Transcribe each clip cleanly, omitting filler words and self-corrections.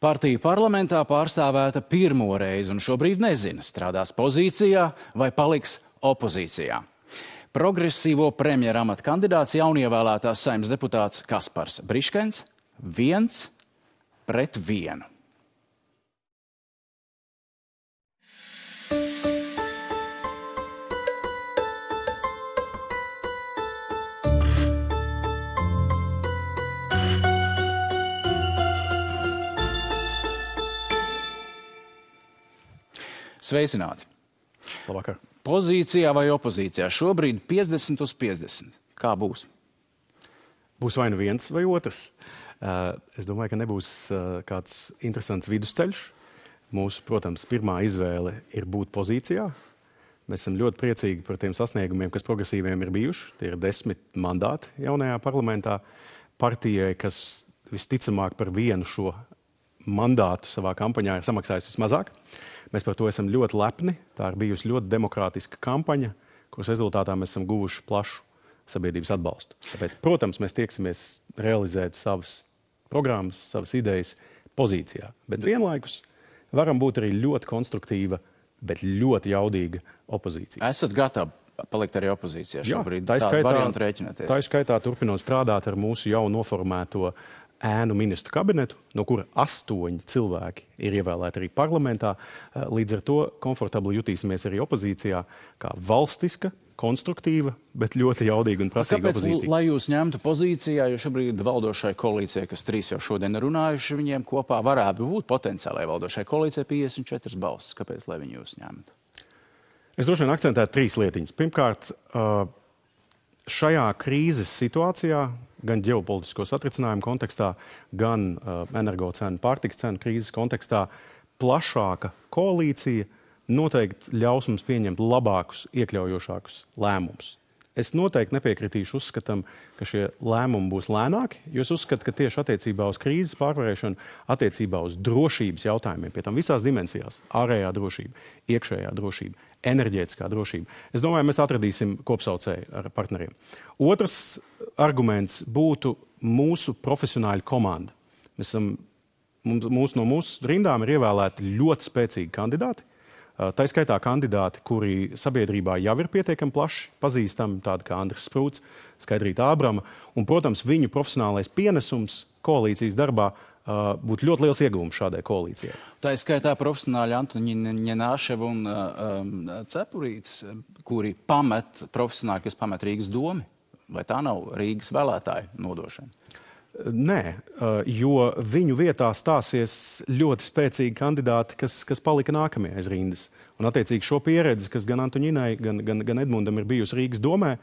Partija parlamentā pārstāvēta pirmo reizi un šobrīd nezina, strādās pozīcijā vai paliks opozīcijā. Progresīvo premjera amata kandidāts jaunievēlētās Saeimas deputāts Kaspars Briškens 1-1. Sveicināti! Labvakar. Pozīcijā vai opozīcijā? Šobrīd 50-50. Kā būs? Būs vai nu viens vai otrs. Es domāju, ka nebūs kāds interesants vidusceļš. Mūsu, protams, pirmā izvēle ir būt pozīcijā. Mēs esam ļoti priecīgi par tiem sasniegumiem, kas progresīviem ir bijuši. Tie ir 10 mandāti jaunajā parlamentā. Partijai, kas visticamāk par vienu šo mandātu savā kampaņā ir samaksājusi vismazāk. Mēs par to esam ļoti lepni. Tā ir bijusi ļoti demokrātiska kampaņa, kuras rezultātā mēs esam guvuši plašu sabiedrības atbalstu. Tāpēc, protams, mēs tieksimies realizēt savas programmas, savas idejas pozīcijā. Bet vienlaikus varam būt arī ļoti konstruktīva, bet ļoti jaudīga opozīcija. Esat gatavi palikt arī opozīcijā šobrīd? Jā, tādu variantu rēķināties? Tā ir skaitā turpinot strādāt ar mūsu jau noformēto ēnu ministru kabinetu, no kura 8 cilvēki ir ievēlēti arī parlamentā. Līdz ar to komfortabli jutīsimies arī opozīcijā kā valstiska, konstruktīva, bet ļoti jaudīga un prasīga opozīcija. Kāpēc, lai jūs ņemtu pozīcijā, jo šobrīd valdošai koalīcijai, kas 3 jau šodien runājuši, viņiem kopā varētu būt potenciālai valdošai koalīcijai 54 balsis. Kāpēc, lai viņi jūs ņemtu? Es droši vien akcentētu 3 lietiņas. Pirmkārt, šajā krīzes situācijā, gan ģeopolitisko satricinājumu kontekstā, gan energocenu, pārtikas cenu krīzes kontekstā, plašāka koalīcija noteikti ļaus mums pieņemt labākus, iekļaujošākus lēmumus. Es noteikti nepiekritīšu uzskatam, ka šie lēmumi būs lēnāki, jo es uzskatu, ka tieši attiecībā uz krīzes pārvarēšanu, attiecībā uz drošības jautājumiem, pie tam visās dimensijās, ārējā drošība, iekšējā drošība, enerģētiskā drošība. Es domāju, mēs atradīsim kopsaucēju ar partneriem. Otrs arguments būtu mūsu profesionāļu komanda. No mūsu rindām ir ievēlēti ļoti spēcīgi kandidāti. Tā skaitā kandidāti, kuri sabiedrībā jau ir pietiekami plaši pazīstami, tādi kā Andris Sprūts, Skaidrīta Ābrama. Un, protams, viņu profesionālais pienesums koalīcijas darbā būtu ļoti liels ieguvums šādai koalīcijai. Tā skaitā profesionāļi Antoņina Ņenāševa un Cepurītis, kuri profesionāļi, kas pamet Rīgas domi. Vai tā nav Rīgas vēlētāju nodošana? Nē, jo viņu vietā stāsies ļoti spēcīgi kandidāti, kas palika nākamie aiz rindas. Un attiecīgi šo pieredzi, kas gan Antoņinai, gan Edmundam ir bijusi Rīgas domē,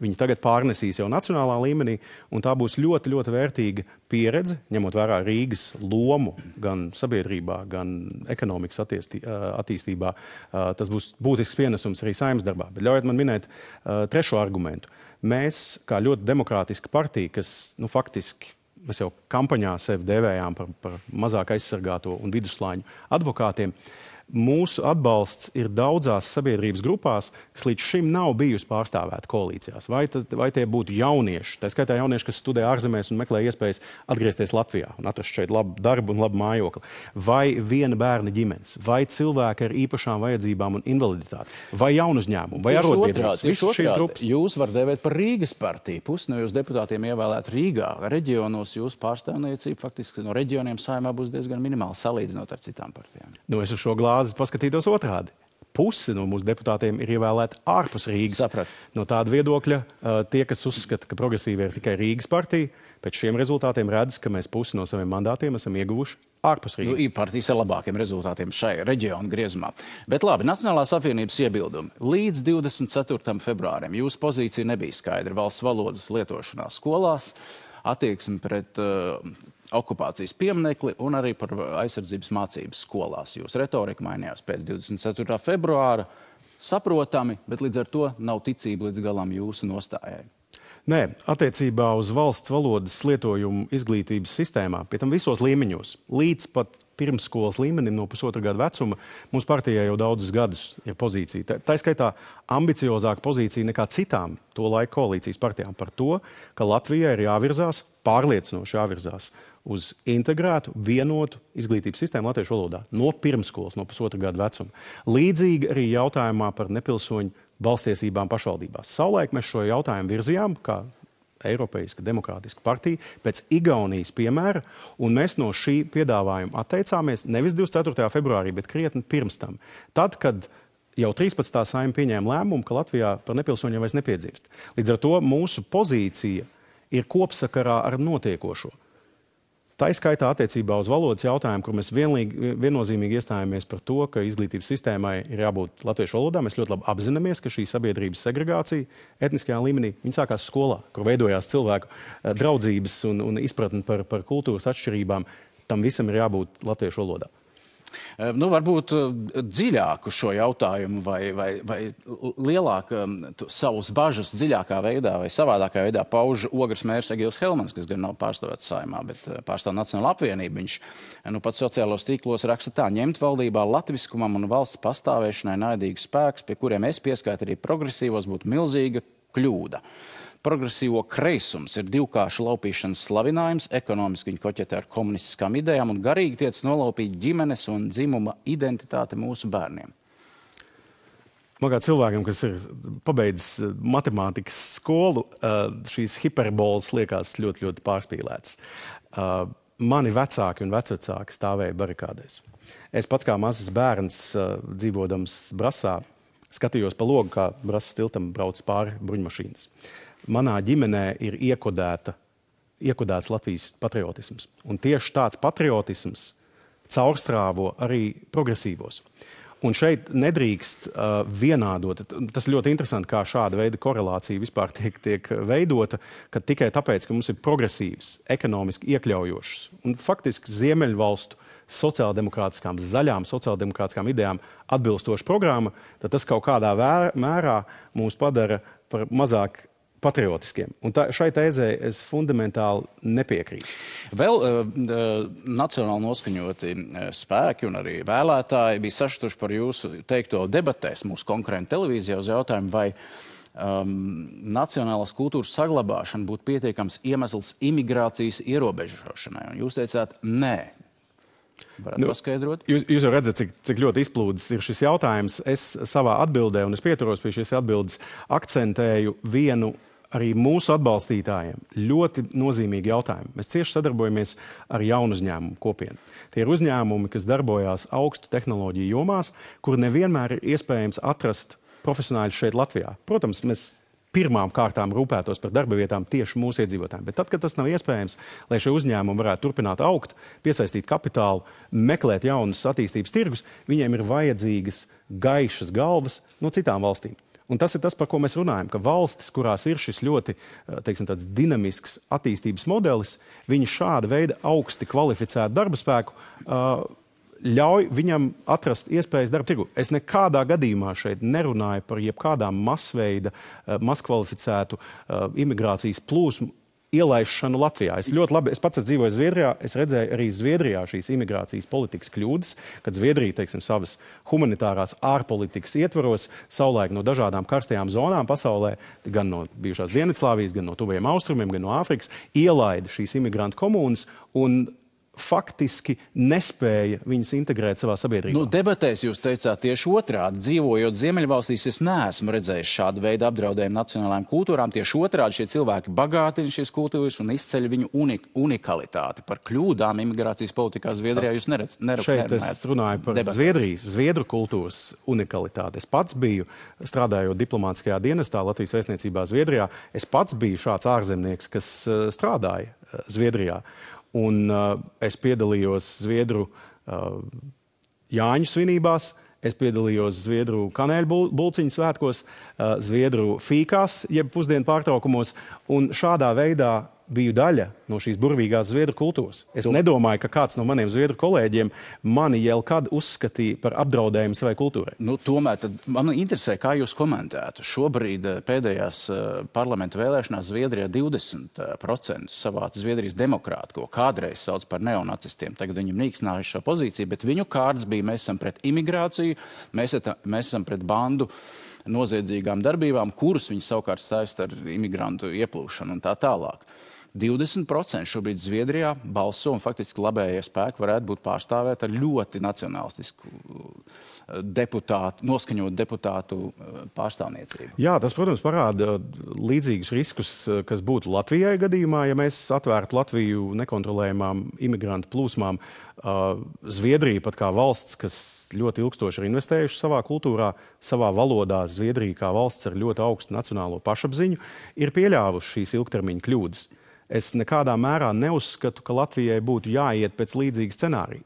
viņi tagad pārnesīs jau nacionālā līmenī, un tā būs ļoti, ļoti vērtīga pieredze, ņemot vērā Rīgas lomu gan sabiedrībā, gan ekonomikas attīstībā. Tas būs būtisks pienesums arī Saeimas darbā. Bet ļaujiet man minēt trešo argumentu. Mēs, kā ļoti demokrātiska partija, kas faktiski mēs jau kampaņā sevi dēvējām par mazāk aizsargāto un vidusslāņu advokātiem, mūsu atbalsts ir daudzās sabiedrības grupās, kas līdz šim nav bijusi pārstāvēta koalīcijās. Vai tie būtu jaunieši, tā skaitā jaunieši, kas studē ārzemēs un meklē iespējas atgriezties Latvijā un atrast šeit labu darbu un labu mājokli, vai viena bērna ģimenes, vai cilvēki ar īpašām vajadzībām un invaliditāti, vai jaunuzņēmumu, vai arotbiedrības. Visas šīs grupas. Jūs var devēt par Rīgas partiju. Pusi no jūs deputātiem ievēlēt Rīgā. Reģionos jūsu pārstāvniecība faktiski no reģioniem Saeimā būs diezgan minimāli salīdzinot ar citām partijām. Es uz šo paskatītos otrādi. Pusi no mūsu deputātiem ir ievēlēti ārpus Rīgas. Saprat. No tāda viedokļa tie, kas uzskata, ka progresīvi ir tikai Rīgas partija, pēc šiem rezultātiem redz, ka mēs pusi no saviem mandātiem esam ieguvuši ārpus Rīgas. Ir partijas ar labākiem rezultātiem šai reģionu griezumā. Bet labi, Nacionālās apvienības iebildumi. Līdz 24. februārim jūsu pozīcija nebija skaidra valsts valodas lietošanā skolās, attieksmi pret okupācijas pieminekli un arī par aizsardzības mācības skolās. Jūs retorika mainījās pēc 24. februāra. Saprotami, bet līdz ar to nav ticība līdz galam jūsu nostājai. Nē, attiecībā uz valsts valodas lietojumu izglītības sistēmā, pie tam visos līmeņos, līdz pat pirmsskolas līmenim no 1,5 gada vecuma, mums partijā jau daudzus gadus ir pozīcija. Tā skaitā ambiciozāka pozīcija nekā citām to laiku koalīcijas partijām par to, ka Latvijai ir jāvirzās, pārliecinoši jāvirzās uz integrētu, vienotu izglītības sistēmu latviešu valodā no pirmsskolas, no 1,5 gada vecuma. Līdzīgi arī jautājumā par nepilsoņu balstiesībām pašvaldībās. Savulaik mēs šo jautājumu virzījām, kā Eiropeiska demokrātiska partija, pēc Igaunijas piemēra, un mēs no šī piedāvājuma atteicāmies nevis 24. februārī, bet krietni pirms tam. Tad, kad jau 13. Saeima pieņēma lēmumu, ka Latvijā par nepilsoņiem vairs nepiedzimst. Līdz ar to mūsu pozīcija ir kopsakarā ar notiekošo. Tā izskaitā attiecībā uz valodas jautājumu, kur mēs viennozīmīgi iestājāmies par to, ka izglītības sistēmai ir jābūt latviešu valodā. Mēs ļoti labi apzināmies, ka šī sabiedrības segregācija etniskajā līmenī sākās skolā, kur veidojās cilvēku draudzības un izpratni par kultūras atšķirībām. Tam visam ir jābūt latviešu valodā. Nu, varbūt dziļāku šo jautājumu vai lielāk savus bažas dziļākā veidā vai savādākā veidā pauž Ogres mērs Egils Helmans, kas gan nav pārstāvēts Saeimā, bet pārstāv Nacionālo apvienību. Viņš pat sociālos tīklos raksta tā: ņemt valdībā latviskumam un valsts pastāvēšanai naidīgus spēkus, pie kuriem es pieskaitu arī progresīvos, būtu milzīga kļūda. Progresīvo kreisums ir divkārša laupīšanas slavinājums, ekonomiski viņi koķetē ar komunistiskām idejām un garīgi tiec nolaupīt ģimenes un dzimuma identitāti mūsu bērniem. Man kā cilvēkam, kas ir pabeidzis matemātikas skolu, šīs hiperbolas liekas ļoti, ļoti pārspīlētas. Mani vecāki un vecvecāki stāvēja barikādēs. Es pats kā mazs bērns, dzīvodams Brasā, skatījos pa logu, kā Brasas tiltam brauc pāri bruņmašīnas. Manā ģimenē ir iekodēts Latvijas patriotisms. Un tieši tāds patriotisms caurstrāvo arī progresīvos. Un šeit nedrīkst vienādot. Tas ļoti interesanti, kā šāda veida korelācija vispār tiek veidota, ka tikai tāpēc, ka mums ir progresīvs, ekonomiski iekļaujošs un faktiski ziemeļvalstu sociāldemokrātiskām, zaļām sociāldemokrātiskām idejām atbilstoša programma, tad tas kaut kādā mērā mūs padara par mazāk patriotiskiem. Un šai tēzē es fundamentāli nepiekrītu. Vēl nacionāli noskaņoti spēki un arī vēlētāji bija sašutuši par jūsu teikto debatēs mūsu konkurentu televīzijā uz jautājumu, vai nacionālās kultūras saglabāšana būtu pietiekams iemesls imigrācijas ierobežošanai. Un jūs teicāt, nē. Varētu paskaidrot? Jūs jau redzat, cik ļoti izplūdes ir šis jautājums. Es savā atbildē, un es pieturos pie šīs atbildes, akcentēju vienu arī mūsu atbalstītājiem ļoti nozīmīgi jautājumi. Mēs cieši sadarbojamies ar jaunu uzņēmumu kopienu. Tie ir uzņēmumi, kas darbojās augstu tehnoloģiju jomās, kur nevienmēr ir iespējams atrast profesionāļus šeit Latvijā. Protams, mēs pirmām kārtām rūpētos par darba vietām tieši mūsu iedzīvotājiem. Bet tad, kad tas nav iespējams, lai šie uzņēmumi varētu turpināt augt, piesaistīt kapitālu, meklēt jaunus attīstības tirgus, viņiem ir vajadzīgas gaišas galvas no citām valstīm. Un tas ir tas, par ko mēs runājam, ka valstis, kurās ir šis ļoti, teiksim, tāds dinamisks attīstības modelis, viņi šāda veida augsti kvalificētu darba spēku ļauj viņam atrast iespējas darba tirgu. Es nekādā gadījumā šeit nerunāju par jebkādām masveida, maskvalificētu imigrācijas plūsmu ielaišanu Latvijā. Es pats dzīvoju Zviedrijā, es redzēju arī Zviedrijā šīs imigrācijas politikas kļūdas, kad Zviedrija, teiksim, savas humanitārās ārpolitikas ietvaros savulaik no dažādām karstajām zonām pasaulē, gan no bijušās Dienvidslāvijas, gan no tuvajiem austrumiem, gan no Āfrikas, ielaida šīs imigrantu komunas un faktiski nespēja viņus integrēt savā sabiedrībā. Nu, debatēs jūs teicāt tieši otrādi. Dzīvojot Ziemeļvalstīs, es neesmu redzējis šādu veidu apdraudējumu nacionālajām kultūrām. Tieši otrādi šie cilvēki bagātina šīs kultūras un izceļ viņu unikalitāti. Par kļūdām imigrācijas politikā Zviedrijā jūs nerunājat. Šeit es runāju par Zviedru kultūras unikalitāti. Es pats biju, strādājot diplomātiskajā dienestā Latvijas vēstniecībā Zviedrijā, es pats biju šāds ārzemnieks, kas strādāja Zviedrijā. Un es piedalījos Zviedru Jāņu svinībās, es piedalījos Zviedru kanēļu bulciņu svētkos, Zviedru fīkās, jeb pusdienu pārtraukumos, un šādā veidā biju daļa no šīs burvīgās zviedru kultūras. Es nedomāju, ka kāds no maniem zviedru kolēģiem mani jau kad uzskatīja par apdraudējumu savai kultūrai. Tomēr man interesē, kā jūs komentētu. Šobrīd pēdējās parlamenta vēlēšanās Zviedrijā 20% savāca Zviedrijas demokrāti, ko kādreiz sauc par neonacistiem. Tagad viņam nīksnājuši šo pozīciju, bet viņu kārds bija, mēs esam pret imigrāciju, mēs esam pret bandu noziedzīgām darbībām, kuras viņi savukārt saista ar imigrantu ieplūšanu un tā tālāk. 20% šobrīd Zviedrijā balso un faktiski labējie spēki varētu būt pārstāvēti ar ļoti nacionalistisku noskaņotu deputātu pārstāvniecību. Jā, tas, protams, parāda līdzīgus riskus, kas būtu Latvijai gadījumā, ja mēs atvērtu Latviju nekontrolējumām imigrantu plūsmām. Zviedrija pat kā valsts, kas ļoti ilgstoši ir investējuši savā kultūrā, savā valodā, Zviedrija kā valsts ar ļoti augstu nacionālo pašapziņu, ir pieļāvuši šīs ilgtermiņa kļūdas. Es nekādā mērā neuzskatu, ka Latvijai būtu jāiet pēc līdzīga scenārija.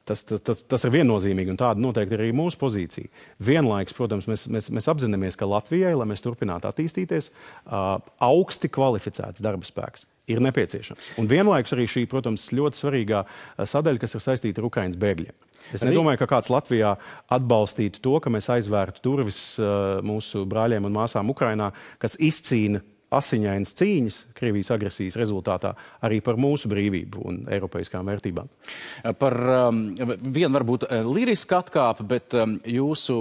Tas ir viennozīmīgi, un tāda noteikti ir arī mūsu pozīcija. Vienlaikus, protams, mēs apzināmies, ka Latvijai, lai mēs turpinātu attīstīties, augsti kvalificēts darba spēks ir nepieciešams. Un vienlaikus arī šī, protams, ļoti svarīgā sadaļa, kas ir saistīta ar Ukrainas bēgļiem. Es nedomāju, ka kāds Latvijā atbalstītu to, ka mēs aizvērtu durvis mūsu brāļiem un māsām Ukrainā, kas izcīna asiņainas cīņas Krievijas agresijas rezultātā arī par mūsu brīvību un eiropeiskām vērtībām. Par vienu varbūt lirisku atkāpi, bet jūsu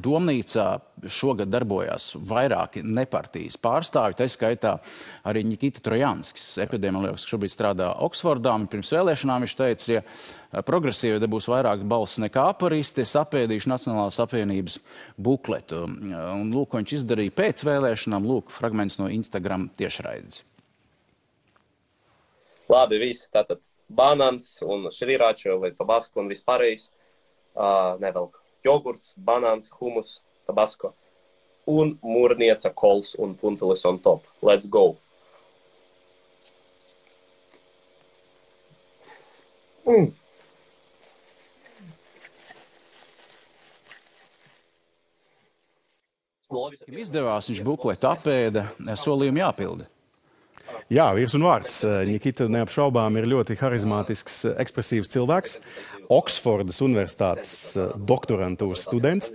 domnīcā šogad darbojās vairāki nepartijas pārstāvji, tā skaitā arī Nikita Trojanskis, epidemiologs, kas šobrīd strādā Oksfordā, un pirms vēlēšanām viņš teica, ja progresīvi dabūs vairāk balss nekā aparisti, es apēdīšu Nacionālās apvienības bukletu. Un lūk, ko viņš izdarīja pēc vēlēšanām, lūk, fragments no Instagram tiešraides. Labi, viss tātad banāns un šriračo vai tabasko un vispārējais nevelk. Jogurts, banāns, humus, tabasko un mūrnieca kols un puntelis on top. Let's go! Izdevās, viņš bukletu apēda, solījumi jāpilda. Jā, virs un vārds. Nikita neapšaubām ir ļoti harizmātisks, ekspresīvs cilvēks. Oksfordas universitātes doktorantūras students,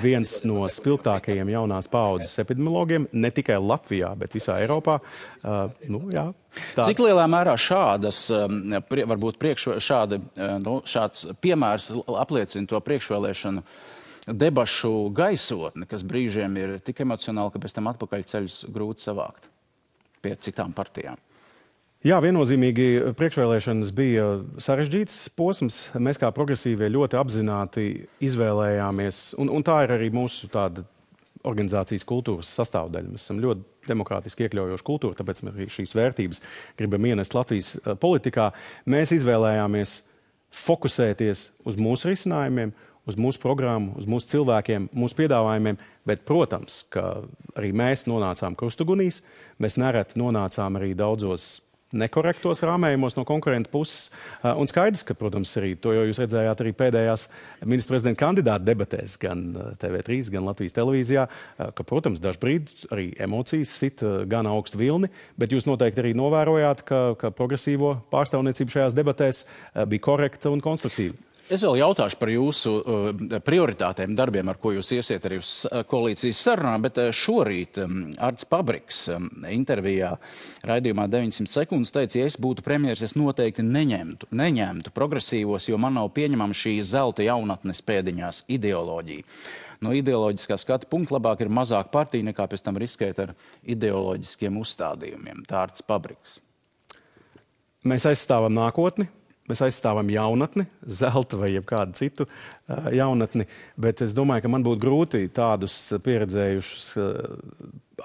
viens no spilgtākajiem jaunās paaudzes epidemiologiem, ne tikai Latvijā, bet visā Eiropā. Cik lielā mērā šādas, varbūt šāds piemērs apliecina to priekšvēlēšanu debašu gaisotni, kas brīžiem ir tik emocionāli, ka pēc tam atpakaļ ceļus grūti savākt pie citām partijām? Jā, viennozīmīgi priekšvēlēšanas bija sarežģīts posms. Mēs kā progresīvie ļoti apzināti izvēlējāmies, un tā ir arī mūsu tāda organizācijas kultūras sastāvdaļa. Mēs esam ļoti demokrātiski iekļaujoša kultūra, tāpēc mēs arī šīs vērtības gribam ienest Latvijas politikā. Mēs izvēlējāmies fokusēties uz mūsu risinājumiem, uz mūsu programmu, uz mūsu cilvēkiem, mūsu piedāvājumiem, bet, protams, ka arī mēs nonācām krustugunīs, mēs nereti nonācām arī daudzos nekorektos rāmējumos no konkurenta puses, un skaidrs, ka, protams, arī to jau jūs redzējāt arī pēdējās ministra prezidenta kandidāta debatēs, gan TV3, gan Latvijas televīzijā, ka, protams, dažbrīd arī emocijas sit gan augstu vilni, bet jūs noteikti arī novērojāt, ka progresīvo pārstāvniecība šajās debatēs bija korekta un konstruktīva. Es vēl jautāšu par jūsu prioritātēm darbiem, ar ko jūs iesiet arī uz koalīcijas sarunām, bet šorīt Arts Pabriks intervijā raidījumā 900 sekundes teica, ja es būtu premjeras, es noteikti neņemtu progresīvos, jo man nav pieņemama šī zelta jaunatnes pēdiņās ideoloģija. No ideoloģiskā skata punkta labāk ir mazāk partija nekā pēc tam riskēt ar ideoloģiskiem uzstādījumiem. Tā Arts Pabriks. Mēs aizstāvam nākotni. Mēs aizstāvam jaunatni, zelta vai jebkādu citu jaunatni, bet es domāju, ka man būtu grūti tādus pieredzējušus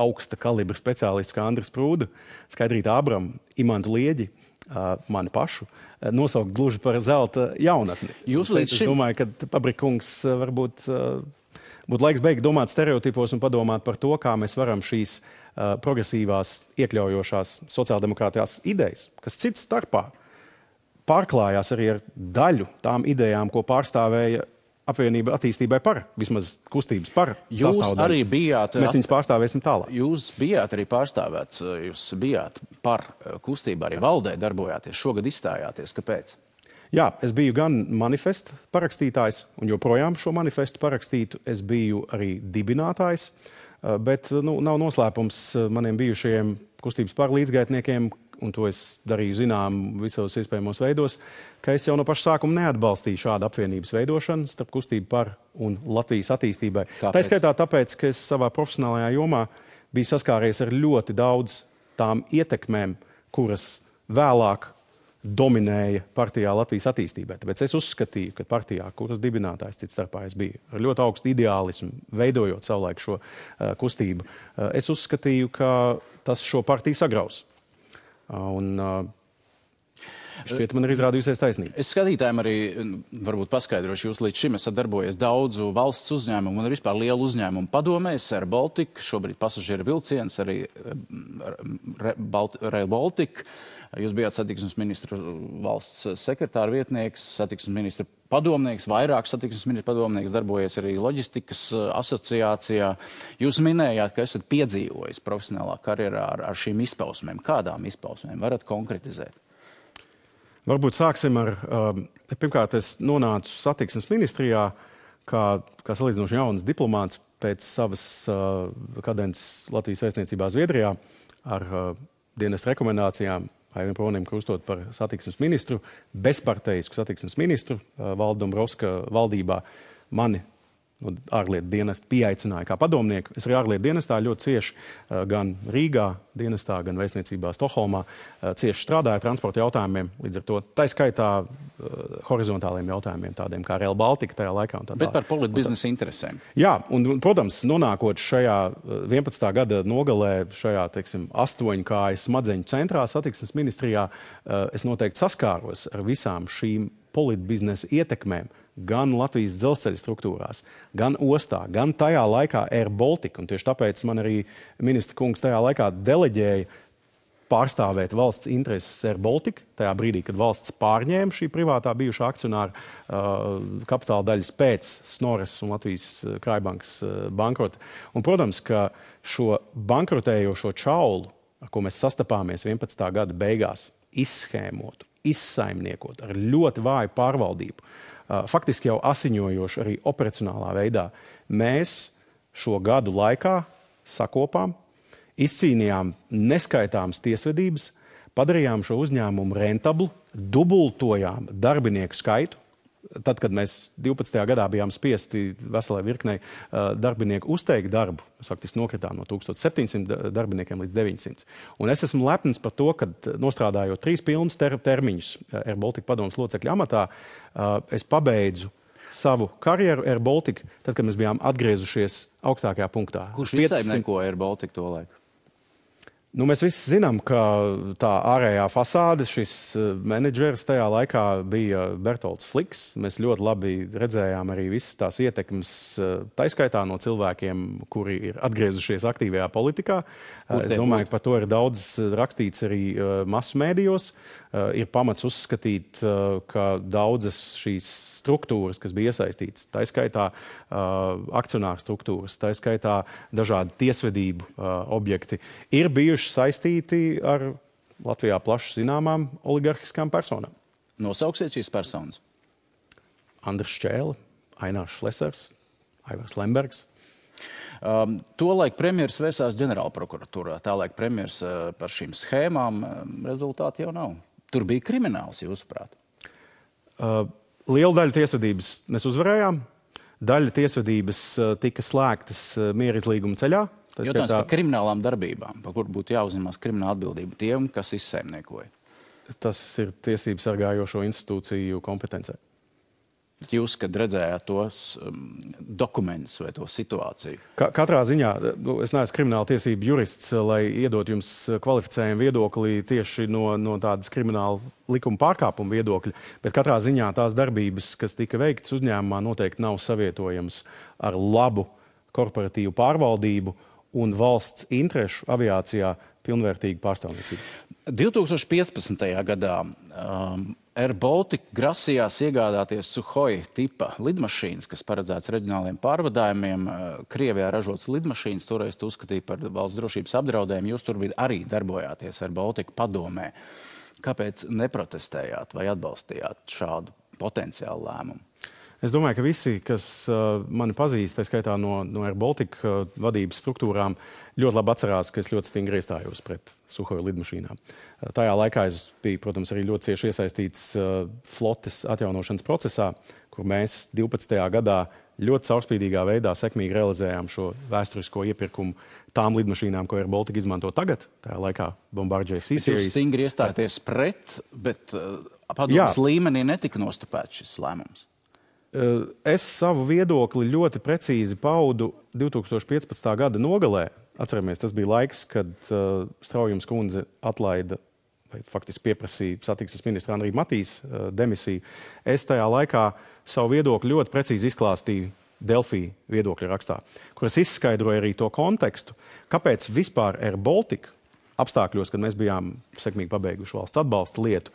augsta kalibra speciālistus kā Andris Prūda, Skaidrītu Abramu, Imantu Lieģi, mani pašu, nosaukt gluži par zelta jaunatni. Es domāju, ka Pabrikungs varbūt būtu laiks beigt domāt stereotipos un padomāt par to, kā mēs varam šīs progresīvās, iekļaujošās sociāldemokrātijās idejas, kas cits starpā pārklājās arī ar daļu tām idejām, ko pārstāvēja apvienība attīstībai par, vismaz kustības par Jūs sastāvdaļu. arī bijāt... Mēs viņus pārstāvēsim tālāk. Jūs bijāt arī pārstāvēts, jūs bijāt par kustību, arī valdē darbojāties, šogad izstājāties. Kāpēc? Jā, es biju gan manifesta parakstītājs, un joprojām šo manifestu parakstītu. Es biju arī dibinātājs, bet nav noslēpums maniem bijušajiem kustības par līdzgaitniekiem, un to es darīju zinām visos iespējamos veidos, ka es jau no paša sākuma neatbalstīju šādu apvienības veidošanu starp kustību par un Latvijas attīstībai. Tā skaitā tāpēc, ka es savā profesionālajā jomā biju saskāries ar ļoti daudz tām ietekmēm, kuras vēlāk dominēja partijā Latvijas attīstībai. Tāpēc es uzskatīju, ka partijā, kuras dibinātājs cits starpā es biju, ar ļoti augstu ideālismu, veidojot savulaik šo kustību, es uzskatīju, ka tas šo partiju sagraus. Un šķiet, man ir izrādījusies taisnība. Es skatītājiem arī varbūt paskaidrošu, jūs līdz šim esat darbojies daudzu valsts uzņēmumu un vispār lielu uzņēmumu padomēs, Air Baltic, šobrīd pasažieru vilciens, arī Rail Baltic. Jūs bijāt satiksmes ministra valsts sekretāra vietnieks, satiksmes ministra padomnieks, vairāk satiksmes ministra padomnieks, darbojies arī loģistikas asociācijā. Jūs minējāt, ka esat piedzīvojis profesionālā karjerā ar šīm izpausmēm. Kādām izpausmēm varat konkretizēt? Varbūt sāksim ar, pirmkārt, es nonācu satiksmes ministrijā kā salīdzinoši jauns diplomāts pēc savas kadences Latvijas vēstniecībā Zviedrijā ar dienesta rekomendācijām. Aivim Pronim krustot par satiksmes ministru, bezparteisku satiksmes ministru Valdu Dombrovska valdībā. Mani ārlietu dienestu pieaicināja kā padomnieku. Es arī ārlietu dienestā ļoti cieši gan Rīgā dienestā, gan vēstniecībā Stokholmā cieši strādāju transporta jautājumiem, līdz ar to tā skaitā horizontāliem jautājumiem, tādiem kā Rail Baltica tajā laikā. Bet par politbiznesa interesēm. Jā, un, protams, nonākot šajā 11. gada nogalē, šajā, 8 kājas smadzeņu centrā satiksmes ministrijā, es noteikti saskāros ar visām šīm politbiznesa ietekmēm, gan Latvijas dzelzceļa struktūrās, gan ostā, gan tajā laikā Air Baltica. Un tieši tāpēc man arī ministra kungs tajā laikā deleģēja pārstāvēt valsts intereses Air Baltica, tajā brīdī, kad valsts pārņēma šī privātā bijušā akcionāra kapitāla daļas pēc Snorres un Latvijas Krājbankas bankrota. Un, protams, ka šo bankrotējošo čaulu, ar ko mēs sastapāmies 11. gada beigās, izshēmotu, izsaimniekot ar ļoti vāju pārvaldību, faktiski jau asiņojoši arī operacionālā veidā, mēs šo gadu laikā sakopām, izcīnījām neskaitāmas tiesvedības, padarījām šo uzņēmumu rentablu, dubultojām darbinieku skaitu. Tad, kad mēs 12. gadā bijām spiesti veselai virknei darbinieku uzteikt darbu, mēs faktiski nokritām no 1700 darbiniekiem līdz 900. Un es esmu lepns par to, ka nostrādājot 3 pilnus termiņus Air Baltica padomes locekļa amatā, es pabeidzu savu karjeru Air Baltica, tad, kad mēs bijām atgriezušies augstākajā punktā. Kurš izsaimnieko Air Baltica to laiku? Mēs visi zinām, ka tā ārējā fasāde, šis menedžers tajā laikā bija Bertolds Fliks. Mēs ļoti labi redzējām arī visas tās ietekmes, taiskaitā no cilvēkiem, kuri ir atgriezušies aktīvajā politikā. Es domāju, ka par to ir daudz rakstīts arī masu mēdījos. Ir pamats uzskatīt, ka daudzas šīs struktūras, kas bija iesaistītas, taiskaitā akcionāru struktūras, taiskaitā dažādi tiesvedību objekti, ir bijuši saistīti ar Latvijā plaši zināmām oligarhiskām personām. Nosauksiet šīs personas? Andris Šķēle, Ainārs Šlesers, Aivars Lembergs. Tolaik premjeras vērsās ģenerālprokuratūrā. Tālaik premjeras par šīm schēmām rezultāti jau nav. Tur bija krimināls, jūsuprāt? Lielu daļu tiesvedības mēs uzvarējām. Daļa tiesvedības tika slēgtas mierizlīguma ceļā. Jautājums par kriminālām darbībām, par kur būtu jāuzņemās krimināla atbildība tiem, kas izsaimniekoja. Tas ir tiesību sargājošo institūciju kompetencē. Jūs, kad redzējāt tos dokumentus vai to situāciju? Katrā ziņā, es neesmu krimināla tiesību jurists, lai iedot jums kvalificējumu viedokli tieši no tādas krimināla likuma pārkāpuma viedokļa, bet katrā ziņā tās darbības, kas tika veiktas uzņēmumā, noteikti nav savietojams ar labu korporatīvu pārvaldību un valsts interešu aviācijā pilnvērtīgu pārstāvniecību. 2015. gadā Air Baltica grasījās iegādāties Suhoi tipa lidmašīnas, kas paredzēts reģionāliem pārvadājumiem. Krievijā ražotas lidmašīnas toreiz uzskatīja par valsts drošības apdraudējumu. Jūs tur arī darbojāties Air Baltica padomē. Kāpēc neprotestējāt vai atbalstījāt šādu potenciālu lēmumu? Es domāju, ka visi, kas mani pazīst, tā skaitā no Air Baltica vadības struktūrām, ļoti labi atcerās, ka es ļoti stingri iestājos pret Suhoi lidmašīnām. Tajā laikā es biju, protams, arī ļoti cieši iesaistīts flotes atjaunošanas procesā, kur mēs 12. gadā ļoti caurspīdīgā veidā sekmīgi realizējām šo vēsturisko iepirkumu tām lidmašīnām, ko Air Baltica izmanto tagad. Tajā laikā Bombardier C-Series. Jūs stingri iestāties pret, bet padomas līmenī netika nostupēts šis lēmums. Es savu viedokli ļoti precīzi paudu 2015. gada nogalē. Atceramies, tas bija laiks, kad Straujums kundze atlaida vai faktiski pieprasīja satiksmes ministra Andrija Matīs demisiju. Es tajā laikā savu viedokli ļoti precīzi izklāstīju Delfī viedokļa rakstā, kur es izskaidroju arī to kontekstu, kāpēc vispār Air Baltica apstākļos, kad mēs bijām sekmīgi pabeiguši valsts atbalsta lietu,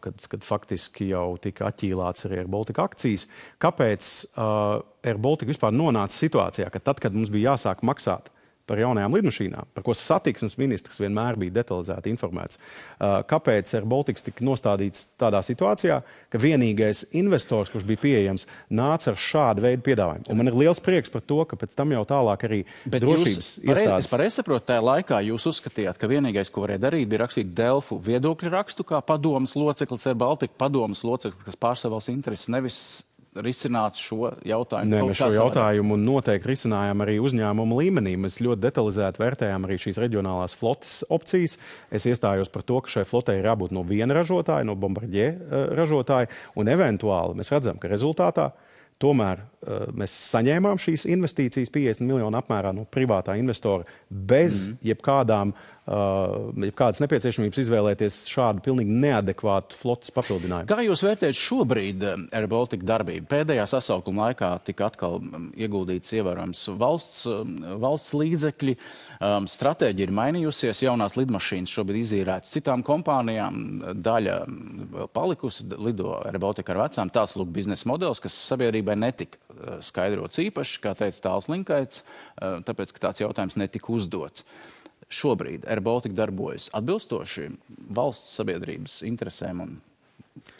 kad faktiski jau tika atķīlāts arī Air Baltica akcijas, kāpēc Air Baltica vispār nonāca situācijā, ka tad, kad mums bija jāsāk maksāt par jaunajām lidmašīnām, par ko satiksmes ministrs vienmēr bija detalizēti informēts. Kāpēc Air Baltica tika nostādīts tādā situācijā, ka vienīgais investors, kurš bija pieejams, nāca ar šādu veidu piedāvājumu. Un man ir liels prieks par to, ka pēc tam jau tālāk arī drošības iestādes. Es pareizi saprotu, tajā laikā jūs uzskatījāt, ka vienīgais, ko varēja darīt, bija rakstīt Delfu viedokļu rakstu, kā padomas loceklis Air Baltica, padomas loceklis, kas pārstāv valsts intereses, nevis risināt šo jautājumu? Nē, mēs šo jautājumu noteikti risinājām arī uzņēmumu līmenī. Mēs ļoti detalizēti vērtējām arī šīs reģionālās flotes opcijas. Es iestājos par to, ka šai flotei ir jābūt no viena ražotāja, no Bombardier ražotāja, un eventuāli mēs redzam, ka rezultātā tomēr mēs saņēmām šīs investīcijas 50 miljonu apmērā no privātā investora bez jebkādas nepieciešamības izvēlēties šādu pilnīgi neadekvātu flotes papildinājumu. Kā jūs vērtējat šobrīd Air Baltica darbību? Pēdējā sasaukuma laikā tika atkal ieguldīts ievērojams valsts līdzekļi. Stratēģija ir mainījusies, jaunās lidmašīnas šobrīd izīrētas citām kompānijām, daļa vēl palikusi, lido Air Baltica ar vecām. Tāds lūk biznesa modelis, kas sabiedrībai netika skaidrots īpaši, kā teica Tāls Linkaits, tāpēc, ka tāds jautājums netika uzdots. Šobrīd Air Baltica darbojas atbilstoši valsts sabiedrības interesēm un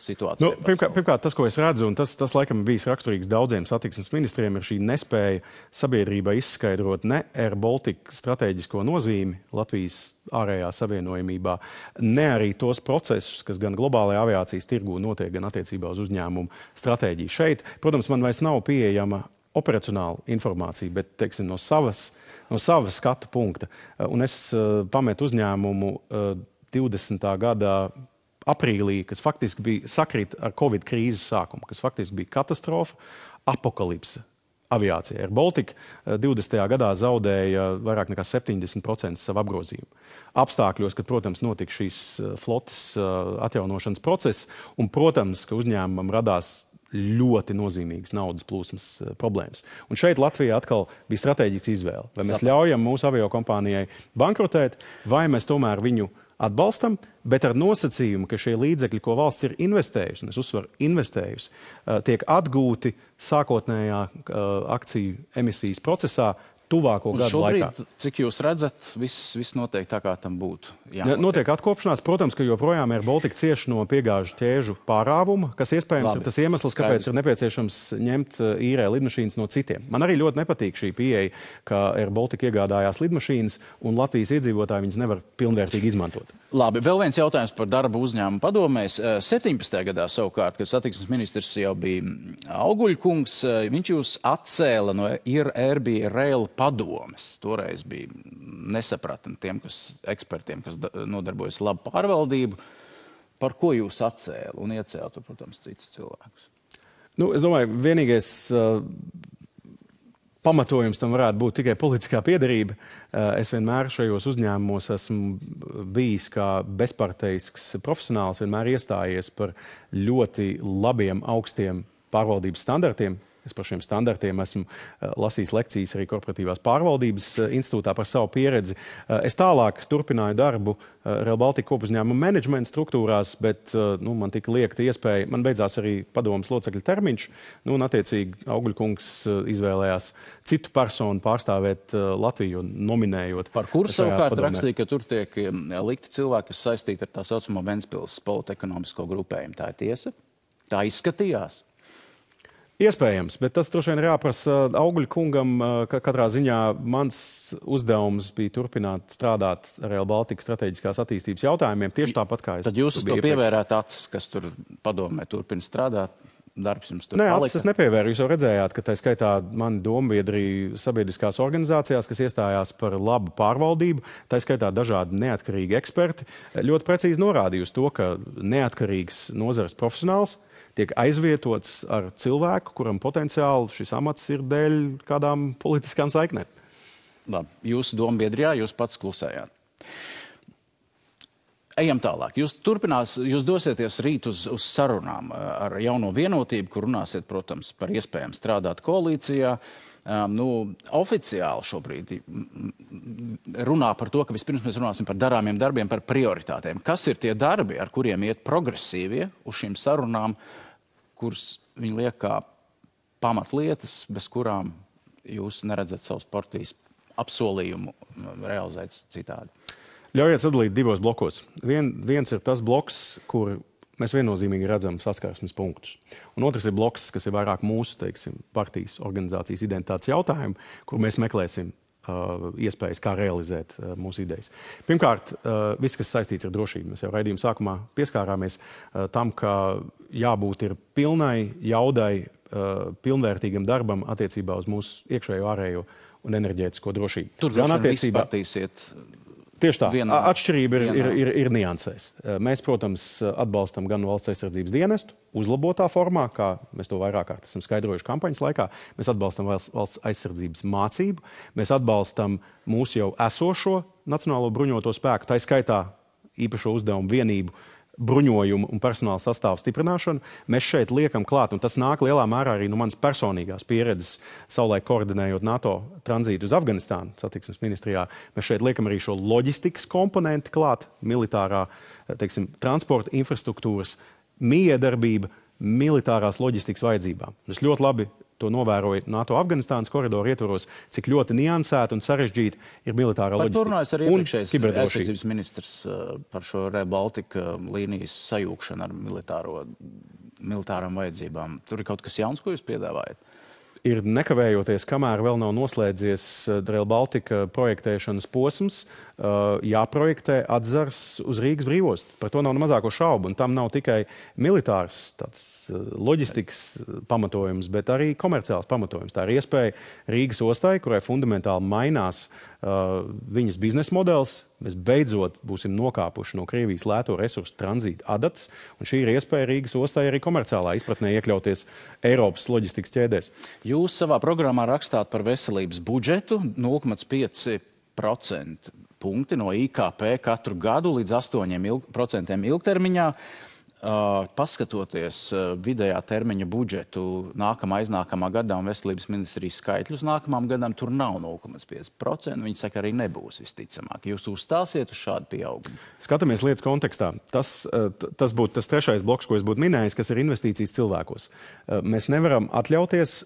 situācijai. Pirmkārt, tas, ko es redzu, un tas laikam bijis raksturīgs daudziem satiksmes ministriem, ir šī nespēja sabiedrībai izskaidrot ne Air Baltica strateģisko nozīmi Latvijas ārējā savienojumībā, ne arī tos procesus, kas gan globālajā aviācijas tirgū notiek, gan attiecībā uz uzņēmumu stratēģiju. Šeit, protams, man vairs nav pieejama operacionāla informācija, bet, teiksim, no savas skatu punkta. Un es pametu uzņēmumu 20. gadā aprīlī, kas faktiski bija sakrīt ar Covid krīzes sākumu, kas faktiski bija katastrofa, apokalipse aviācija. Air Baltica 20. gadā zaudēja vairāk nekā 70% savu apgrozījumu. Apstākļos, kad, protams, notika šīs flotes atjaunošanas process, un, protams, ka uzņēmumam radās ļoti nozīmīgas naudas plūsmas problēmas. Un šeit Latvijā atkal bija strateģisks izvēle. Vai mēs ļaujam mūsu aviokompānijai bankrotēt, vai mēs tomēr viņu atbalstam, bet ar nosacījumu, ka šie līdzekļi, ko valsts ir investējusi, un es uzsveru investējusi, tiek atgūti sākotnējā akciju emisijas procesā tuvāko gadu laikā. Šobrīd, cik jūs redzat, viss notiek tā, kā tam būtu? Notiek atkopšanās. Protams, ka joprojām Air Baltica cieš no piegāžu ķēžu pārāvuma, kas iespējams ir tas iemesls, kāpēc ir nepieciešams ņemt īrē lidmašīnas no citiem. Man arī ļoti nepatīk šī pieeja, ka Air Baltica iegādājās lidmašīnas un Latvijas iedzīvotāji viņas nevar pilnvērtīgi izmantot. Labi, vēl viens jautājums par darbu uzņēmumu padomēs. 17. gadā savukārt, kad satiksmes ministrs jau bija Auguļkungs, viņš jūs atcēla no Airbnb Rail padomes. Toreiz bija nesapratni tiem ekspertiem, kas nodarbojas labu pārvaldību. Par ko jūs atcēla un iecēla tur, protams, citus cilvēkus? Es domāju, vienīgais pamatojums tam varētu būt tikai politiskā piederība. Es vienmēr šajos uzņēmumos esmu bijis kā bezparteisks profesionāls, vienmēr iestājies par ļoti labiem, augstiem pārvaldības standartiem, Es par šiem standartiem esmu lasījis lekcijas arī korporatīvās pārvaldības institūtā par savu pieredzi. Es tālāk turpināju darbu Rail Baltica kopuzņēmuma menedžmenta struktūrās, bet man tika liekta iespēja, man beidzās arī padomas locekļa termiņš, un attiecīgi Augļkungs izvēlējās citu personu pārstāvēt Latviju, nominējot. Par kuru savukārt rakstīja, ka tur tiek likti cilvēki, kas saistīti ar tā saucamo Ventspils politekonomisko grupējumu. Tā ir tiesa? Tā izskatījās? Iespējams, bet tas droši vien ir jāprasa Augļkungam, ka katrā ziņā mans uzdevums bija turpināt strādāt ar Rail Baltica strateģiskās attīstības jautājumiem, tieši tāpat kā es. Tad jūs uz to pievērāt acis, kas tur padomē turpina strādāt? Darbs jums tur palika? Nē, acis es nepievēru. Jūs jau redzējāt, ka tā skaitā mani dombiedri sabiedriskās organizācijās, kas iestājās par labu pārvaldību, tā skaitā dažādi neatkarīgi eksperti, ļoti precīzi norādīja uz to, ka neatkarīgs nozares profesionāls tiek aizvietots ar cilvēku, kuram potenciāli šis amats ir dēļ kādām politiskām saiknēm. Labi, jūsu dombiedrijā jūs pats klusējāt. Ejam tālāk. Jūs dosieties rīt uz sarunām ar jauno vienotību, kur runāsiet, protams, par iespējām strādāt koalīcijā. Oficiāli šobrīd runā par to, ka vispirms mēs runāsim par darāmiem darbiem, par prioritātēm. Kas ir tie darbi, ar kuriem iet progresīvie uz šīm sarunām, kuras viņi liek kā pamatlietas, bez kurām jūs neredzat savus partijas apsolījumu realizēt citādi? Ļaujiet sadalīt divos blokos. Viens ir tas bloks, kur mēs viennozīmīgi redzam saskarsmes punktus. Un otrs ir bloks, kas ir vairāk mūsu, partijas organizācijas identitātes jautājumi, kur mēs meklēsim iespējas, kā realizēt mūsu idejas. Pirmkārt, viss, kas saistīts ar drošību. Mēs jau raidījuma sākumā pieskārāmies tam, ka jābūt ir pilnai jaudai, pilnvērtīgam darbam attiecībā uz mūsu iekšējo, ārējo un enerģētisko drošību. Tur gan attiecībā partīsiet. Tieši tā. Atšķirība ir niansēs. Mēs, protams, atbalstam gan valsts aizsardzības dienestu uzlabotā formā, kā mēs to vairāk kārt esam skaidrojuši kampaņas laikā. Mēs atbalstam valsts aizsardzības mācību. Mēs atbalstam mūsu jau esošo Nacionālo bruņoto spēku, tā skaitā īpašo uzdevumu vienību bruņojumu un personāla sastāvu stiprināšanu. Mēs šeit liekam klāt, un tas nāk lielā mērā arī no manas personīgās pieredzes, savulaik koordinējot NATO tranzītu uz Afganistānu satiksmes ministrijā. Mēs šeit liekam arī šo loģistikas komponenti klāt, militārā, transporta infrastruktūras, miedarbība, militārās loģistikas vajadzībām. Es ļoti labi to novēroju NATO Afganistānas koridoru ietvaros, cik ļoti niansēta un sarežģīta ir militārā loģistika. Par to runājas arī iepriekšējais aizsardzības ministrs par šo Rail Baltica līnijas sajūkšanu ar militārām vajadzībām. Tur ir kaut kas jauns, ko jūs piedāvājat? Ir nekavējoties, kamēr vēl nav noslēdzies Rail Baltica projektēšanas posms, jāprojektē atzars uz Rīgas brīvostu. Par to nav ne mazāko šaubu, un tam nav tikai militārs loģistikas pamatojums, bet arī komerciāls pamatojums. Tā ir iespēja Rīgas ostai, kurai fundamentāli mainās viņas biznesa modelis. Mēs beidzot būsim nokāpuši no Krievijas lēto resursu tranzīta adatas, un šī ir iespēja Rīgas ostai arī komerciālā izpratnē iekļauties Eiropas loģistikas ķēdēs. Jūs savā programmā rakstāt par veselības budžetu 0,5% punkti no IKP katru gadu līdz 8% ilgtermiņā. Paskatoties vidējā termiņa budžetu aiznākamā gadā un veselības ministrijas skaitļus nākamām gadām, tur nav 0,5%. Viņi saka, arī nebūs visticamāk. Jūs uzstāsiet uz šādu pieaugumu? Skatāmies lietas kontekstā. Tas būtu tas trešais bloks, ko es būtu minējis, kas ir investīcijas cilvēkos. Mēs nevaram atļauties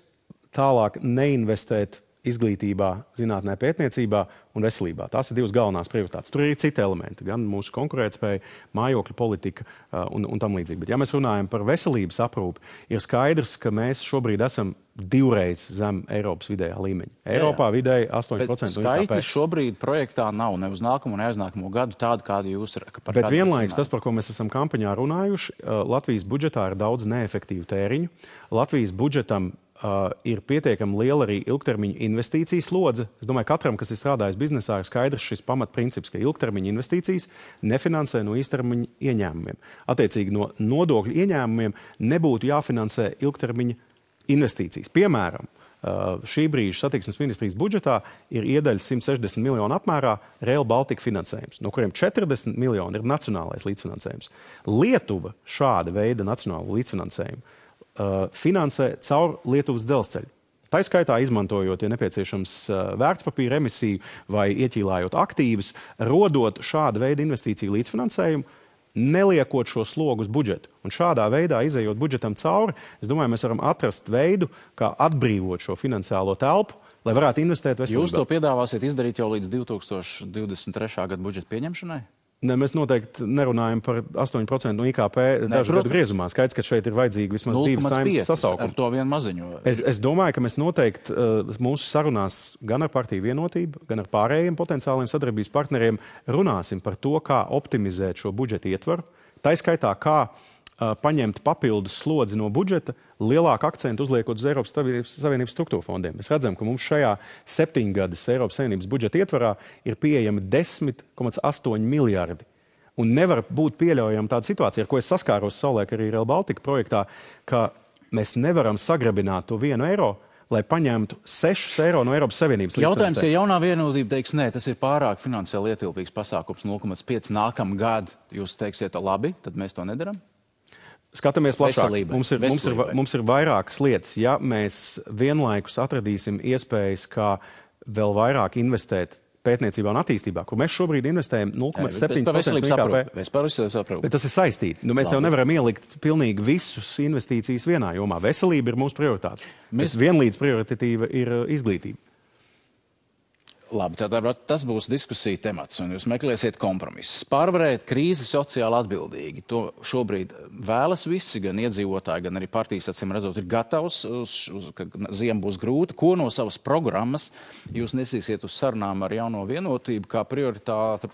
tālāk neinvestēt izglītībā, zinātnē, pētniecībā un veselībā. Tās ir divas galvenās prioritātes. Tur ir citi elementi, gan mūsu konkurētspēja, mājokļu politika un tam līdzīgi. Bet ja mēs runājam par veselības aprūpi, ir skaidrs, ka mēs šobrīd esam divreiz zem Eiropas vidējā līmeņa. Eiropā vidēji 8% no IKP. Skaitļi šobrīd projektā nav ne uz nākamo, ne aiznākamo gadu tādu, kādu jūs par Bet vienlaikus tas, par ko mēs esam kampaņā runājuši, Latvijas budžetā ir daudz neefektīvu tēriņu. Latvijas budžetam ir pietiekami liela arī ilgtermiņa investīcijas slodze. Es domāju, katram, kas ir strādājis biznesā, ir skaidrs šis pamatprincips, ka ilgtermiņa investīcijas nefinansē no īstermiņa ieņēmumiem. Attiecīgi no nodokļu ieņēmumiem nebūtu jāfinansē ilgtermiņa investīcijas. Piemēram, šī brīža satiksmes ministrijas budžetā ir iedaļa 160 miljonu apmērā Rail Baltica finansējums, no kuriem 40 miljoni ir nacionālais līdzfinansējums. Lietuva šāda veida nacionālu līdzfinansējumu finansē caur Lietuvas dzelzceļu. Tā skaitā izmantojot, ja nepieciešams, vērtspapīra emisiju vai ieķīlājot aktīvus, rodot šāda veida investīciju līdzfinansējumu, neliekot šo slogu uz budžetu. Un šādā veidā, izejot budžetam cauri, es domāju, mēs varam atrast veidu, kā atbrīvot šo finansiālo telpu, lai varētu investēt veselībā. Jūs to piedāvāsiet izdarīt jau līdz 2023. gada budžeta pieņemšanai? Ne, mēs noteikti nerunājam par 8% no IKP dažu gadu griezumā. Skaidrs, ka šeit ir vajadzīgi vismaz 2 saimnes sasaukumi. Ar to vien maziņo. Es domāju, ka mēs noteikti mūsu sarunās gan ar partiju vienotību, gan ar pārējiem potenciāliem sadarbības partneriem runāsim par to, kā optimizēt šo budžeta ietvaru. Tā skaitā, kā paņemt papildus slodzi no budžeta, lielāku akcentu uzliekot uz Eiropas Savienības struktūra fondiem. Mēs redzam, ka mums šajā 7 gadas Eiropas Savienības budžeta ietvarā ir pieejami 10,8 miljardi. Un nevar būt pieļaujama tāda situācija, ar ko es saskāros savulaik arī Rail Baltica projektā, ka mēs nevaram sagrabināt to 1 eiro, lai paņemtu 6 eiro no Eiropas Savienības līdzfinansējuma. Jautājums, ja jaunā vienotība teiks, nē, tas ir pārāk finansiāli ietilpīgs pasākums 0,5 nākamā gadu, jūs teiksiet, labi, tad mēs to nedaram? Skatāmies plašāk. Mums ir vairākas lietas. Ja mēs vienlaikus atradīsim iespējas, kā vēl vairāk investēt pētniecībā un attīstībā, kur mēs šobrīd investējam 0,7% no IKP. Es par veselību saprotu. Bet tas ir saistīti. Mēs jau nevaram ielikt pilnīgi visus investīcijas vienā jomā. Veselība ir mūsu prioritāte. Vienlīdz prioritatīva ir izglītība. Labi, tad tas būs diskusija temats, un jūs meklēsiet kompromisus. Pārvarēt krīzi sociāli atbildīgi. To šobrīd vēlas visi, gan iedzīvotāji, gan arī partijas, acīm redzot, ir gatavs, ka ziema būs grūta. Ko no savas programmas jūs nesīsiet uz sarunām ar jauno vienotību kā prioritātu?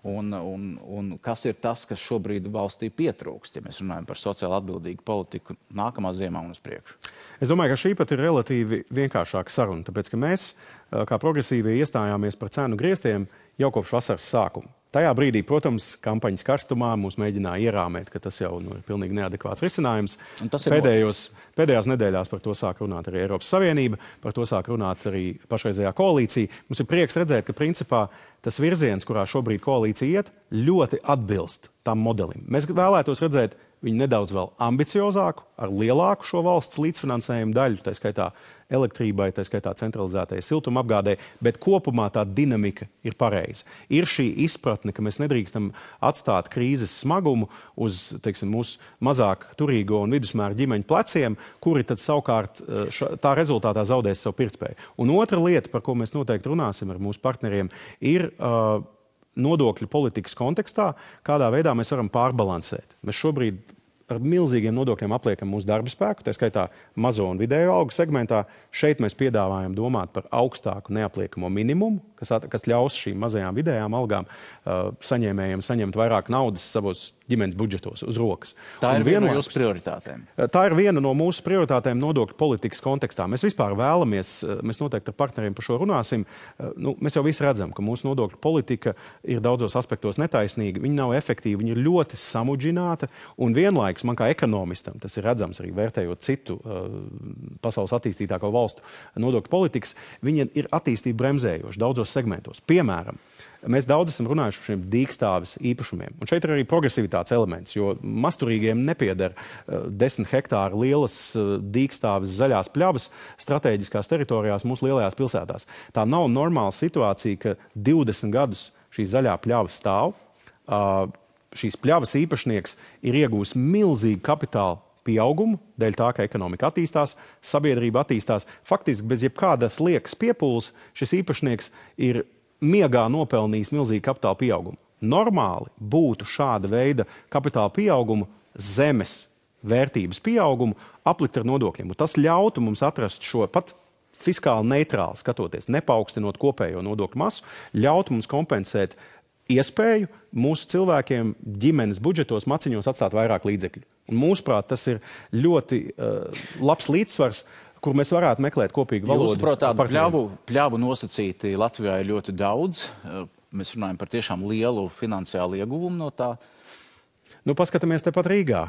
Un kas ir tas, kas šobrīd valstī pietrūkst, ja mēs runājam par sociāli atbildīgu politiku nākamā ziemā un uz priekšu? Es domāju, ka šī pat ir relatīvi vienkāršāka saruna, tāpēc, ka mēs, kā progresīvie, iestājāmies par cenu grieztiem jau kopš vasaras sākuma. Tajā brīdī, protams, kampaņas karstumā mūs mēģināja ierāmēt, ka tas jau ir pilnīgi neadekvāts risinājums. Pēdējās nedēļās par to sāk runāt arī Eiropas Savienība, par to sāk runāt arī pašreizējā koalīcija. Mums ir prieks redzēt, ka principā tas virziens, kurā šobrīd koalīcija iet, ļoti atbilst tam modelim. Mēs vēlētos redzēt viņu nedaudz vēl ambiciozāku, ar lielāku šo valsts līdzfinansējumu daļu, tā skaitā elektrībai, tā skaitā centralizētajai siltumapgādē, bet kopumā tā dinamika ir pareiza. Ir šī izpratne, ka mēs nedrīkstam atstāt krīzes smagumu uz, teiksim, mūsu mazāk turīgo un vidusmēra ģimeņu pleciem, kuri tad savukārt tā rezultātā zaudēs savu pirktspēju. Un otra lieta, par ko mēs noteikti runāsim ar mūsu partneriem, ir nodokļu politikas kontekstā, kādā veidā mēs varam pārbalansēt. Mēs šobrīd ar milzīgiem nodokļiem apliekam mūsu darba spēku, tā skaitā mazo un vidējo algu segmentā. Šeit mēs piedāvājam domāt par augstāku neapliekamo minimumu, kas ļaus šīm mazajām vidējām algām saņēmējiem saņemt vairāk naudas savos ģimenes budžetos uz rokas. Tā ir viena no jūsu prioritātēm. Tā ir viena no mūsu prioritātēm nodokļu politikas kontekstā. Mēs vispār vēlamies, mēs noteikti ar partneriem par šo runāsim, mēs jau visi redzam, ka mūsu nodokļu politika ir daudzos aspektos netaisnīga, viņa nav efektīva, viņa ir ļoti samudžināta un vienlaikus man kā ekonomistam, tas ir redzams arī vērtējot citu pasaules attīstītāko valstu nodokļu politikas, viņa ir attīstība bremzējoša daudzos segmentos. Piemēram, mēs daudz esam runājuši par šiem dīkstāves īpašumiem. Un šeit ir arī progresivitātes elements, jo masturīgiem nepieder 10 hektāru lielas dīkstāves zaļās pļavas strateģiskās teritorijās mūsu lielajās pilsētās. Tā nav normāla situācija, ka 20 gadus šī zaļā pļava stāv. Šīs pļavas īpašnieks ir iegūs milzīgu kapitālu pieaugumu, dēļ tā, ka ekonomika attīstās, sabiedrība attīstās. Faktiski bez jebkādas liekas piepūles šis īpašnieks ir miegā nopelnījis milzīgu kapitāla pieaugumu. Normāli būtu šāda veida kapitāla pieaugumu, zemes vērtības pieaugumu aplikt ar nodokļiem. Un tas ļautu mums atrast šo pat fiskāli neitrāli skatoties, nepaukstinot kopējo nodokļu masu, ļautu mums kompensēt iespēju mūsu cilvēkiem ģimenes budžetos maciņos atstāt vairāk līdzekļu. Un mūsuprāt, tas ir ļoti labs līdzsvars, kur mēs varētu meklēt kopīgu valodu. Jūsuprāt, tādu pļavu nosacīti Latvijā ir ļoti daudz. Mēs runājam par tiešām lielu finansiālu ieguvumu no tā. Paskatāmies tepat Rīgā.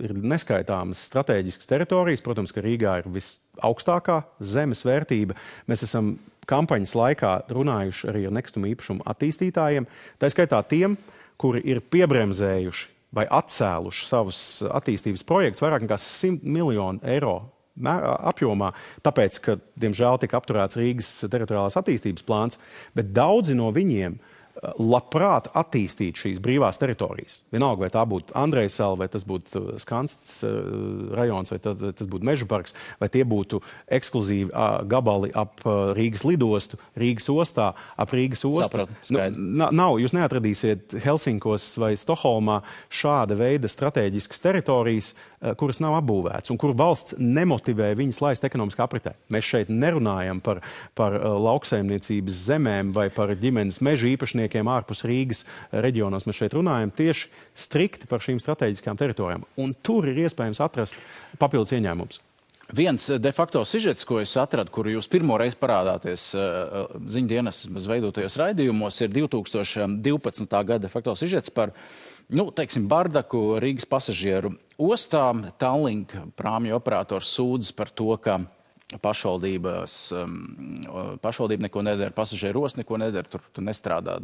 Ir neskaitāmas strateģiskas teritorijas. Protams, ka Rīgā ir visaugstākā zemes vērtība. Mēs esam kampaņas laikā runājuši arī ar nekustamo īpašumu attīstītājiem. Tā skaitā tiem, kuri ir piebremzējuši vai atcēluši savus attīstības projektus vairāk nekā 100 miljonu eiro apjomā, tāpēc, ka, diemžēl, tika apturēts Rīgas teritoriālās attīstības plāns, bet daudzi no viņiem labprāt attīstīt šīs brīvās teritorijas. Vienalga, vai tā būtu Andrejsala, vai tas būtu Skansts rajons, vai tas būtu Meža parks, vai tie būtu ekskluzīvi gabali ap Rīgas lidostu, Rīgas ostā, ap Rīgas ostu. Sapratu, nav, jūs neatradīsiet Helsinkos vai Stokholmā šāda veida strateģiskas teritorijas, kuras nav apbūvētas un kur valsts nemotivē viņas laist ekonomiskā apritē. Mēs šeit nerunājam par lauksaimniecības zemēm vai par ģimenes meža īpašniekiem ārpus Rīgas reģionos. Mēs šeit runājam tieši strikti par šīm strateģiskām teritorijām. Un tur ir iespējams atrast papildus ieņēmumus. Viens de facto sižets, ko es atradu, kuru jūs pirmoreiz parādāties ziņdienas veidotajos raidījumos, ir 2012. gada de facto sižets par teiksim, bardaku Rīgas pasažieru ostā. Tallink prāmju operators sūdzas par to, ka pašvaldība neko nedara, pasažieru osta neko nedara, tur nestrādā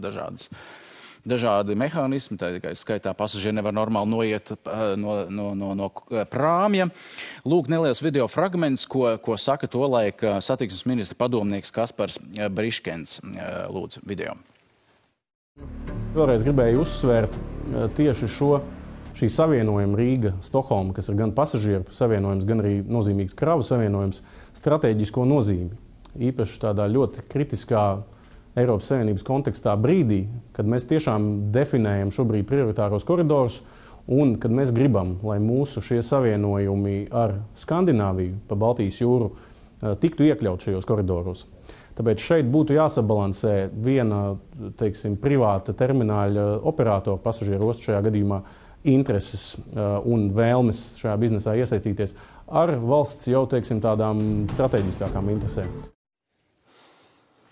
dažādi mehānismi, tā tikai skaitā pasažieri nevar normāli noiet no prāmja. Lūk, neliels video fragments, ko saka tolaik satiksmes ministra padomnieks Kaspars Briškens. Lūdzu, video. Vēlreiz gribēju uzsvērt tieši šī savienojuma Rīga-Stokholma, kas ir gan pasažieru savienojums, gan arī nozīmīgs kravu savienojums, stratēģisko nozīmi. Īpaši tādā ļoti kritiskā Eiropas Savienības kontekstā brīdī, kad mēs tiešām definējam šobrīd prioritāros koridorus un kad mēs gribam, lai mūsu šie savienojumi ar Skandināviju pa Baltijas jūru tiktu iekļaut šajos koridoros. Tāpēc šeit būtu jāsabalansē viena, teiksim, privāta termināļa operatora pasažieru ostu šajā gadījumā intereses un vēlmes šajā biznesā iesaistīties ar valsts jau, teiksim, tādām strateģiskākām interesēm.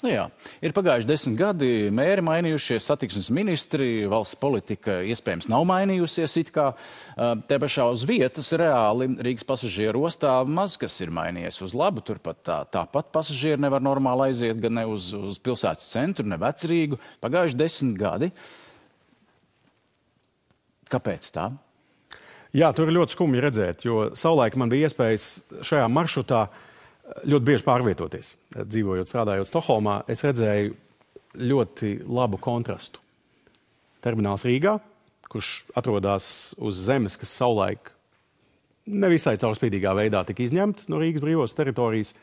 Jā, ir pagājuši 10 gadi, mēri mainījušies, satiksmes ministri, valsts politika iespējams nav mainījusies it kā. Te pašā uz vietas reāli Rīgas pasažieru ostā maz kas ir mainījies uz labu. Turpat tāpat pasažieri nevar normāli aiziet gan ne uz pilsētas centru, ne Vecrīgu. Pagājuši 10 gadi. Kāpēc tā? Jā, tur ir ļoti skumji redzēt, jo savulaik man bija iespējas šajā maršrutā ļoti bieži pārvietoties. Dzīvojot, strādājot Stokholmā, es redzēju ļoti labu kontrastu. Termināls Rīgā, kurš atrodas uz zemes, kas savulaik nevisai caurspīdīgā veidā tika izņemta no Rīgas brīvos teritorijas,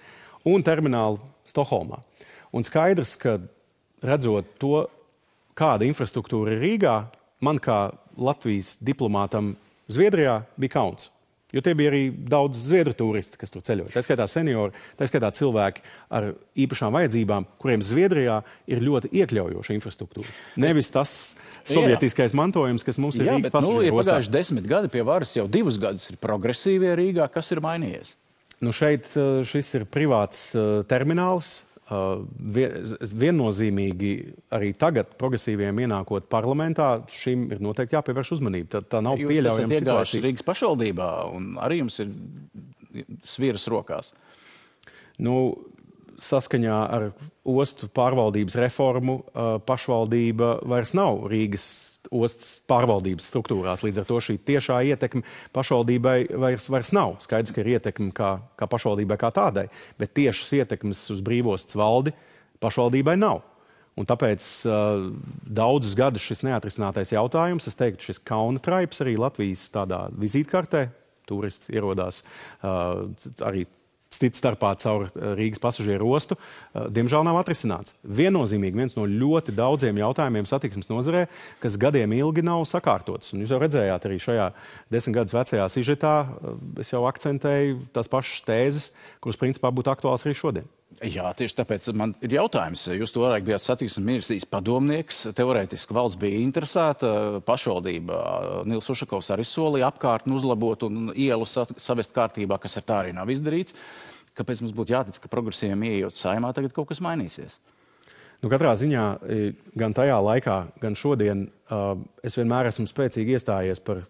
un termināli Stokholmā. Un skaidrs, ka redzot to, kāda infrastruktūra ir Rīgā, man kā Latvijas diplomātam Zviedrijā bija kauns. Jo tie bija arī daudz zviedru turisti, kas tur ceļoja. Tā skaitā seniori, tā skaitā cilvēki ar īpašām vajadzībām, kuriem Zviedrijā ir ļoti iekļaujoša infrastruktūra. Nevis tas sovietiskais mantojums, kas mums ir Rīgas pasažieru ostā. Pagājuši 10 gadi pie varas, jau 2 gadus ir progresīvie Rīgā. Kas ir mainījies? Šeit šis ir privāts termināls. Viennozīmīgi arī tagad progresīviem ienākot parlamentā, šim ir noteikti jāpievērš uzmanība. Tā nav pieļaujama situācija. Jūs esat iegājuši Rīgas pašvaldībā un arī jums ir sviras rokās. Saskaņā ar ostu pārvaldības reformu pašvaldība vairs nav Rīgas ostas pārvaldības struktūrās. Līdz ar to šī tiešā ietekme pašvaldībai vairs nav. Skaidrs, ka ir ietekme kā pašvaldībai kā tādai, bet tiešas ietekmes uz brīvostas valdi pašvaldībai nav. Un tāpēc daudzus gadus šis neatrisinātais jautājums, es teiktu, šis kauna traips arī Latvijas tādā vizītkartē, turisti ierodās arī cits starpā caur Rīgas pasažieru ostu, diemžēl nav atrisināts. Viennozīmīgi viens no ļoti daudziem jautājumiem satiksmes nozarē, kas gadiem ilgi nav sakārtots. Un jūs jau redzējāt arī šajā 10 gadus vecajā sižetā, es jau akcentēju tās pašas tēzes, kuras principā būtu aktuāls arī šodien. Jā, tieši tāpēc man ir jautājums. Jūs toreiz bijāt satiksmes ministrijas padomnieks, teorētiski valsts bija interesēta, pašvaldība Nils Ušakovs arī solīja apkārtni uzlabot un ielu savest kārtībā, kas ar tā arī nav izdarīts. Kāpēc mums būtu jātic, ka progresīviem ieejot saimā tagad kaut kas mainīsies? Katrā ziņā gan tajā laikā, gan šodien es vienmēr esmu spēcīgi iestājies par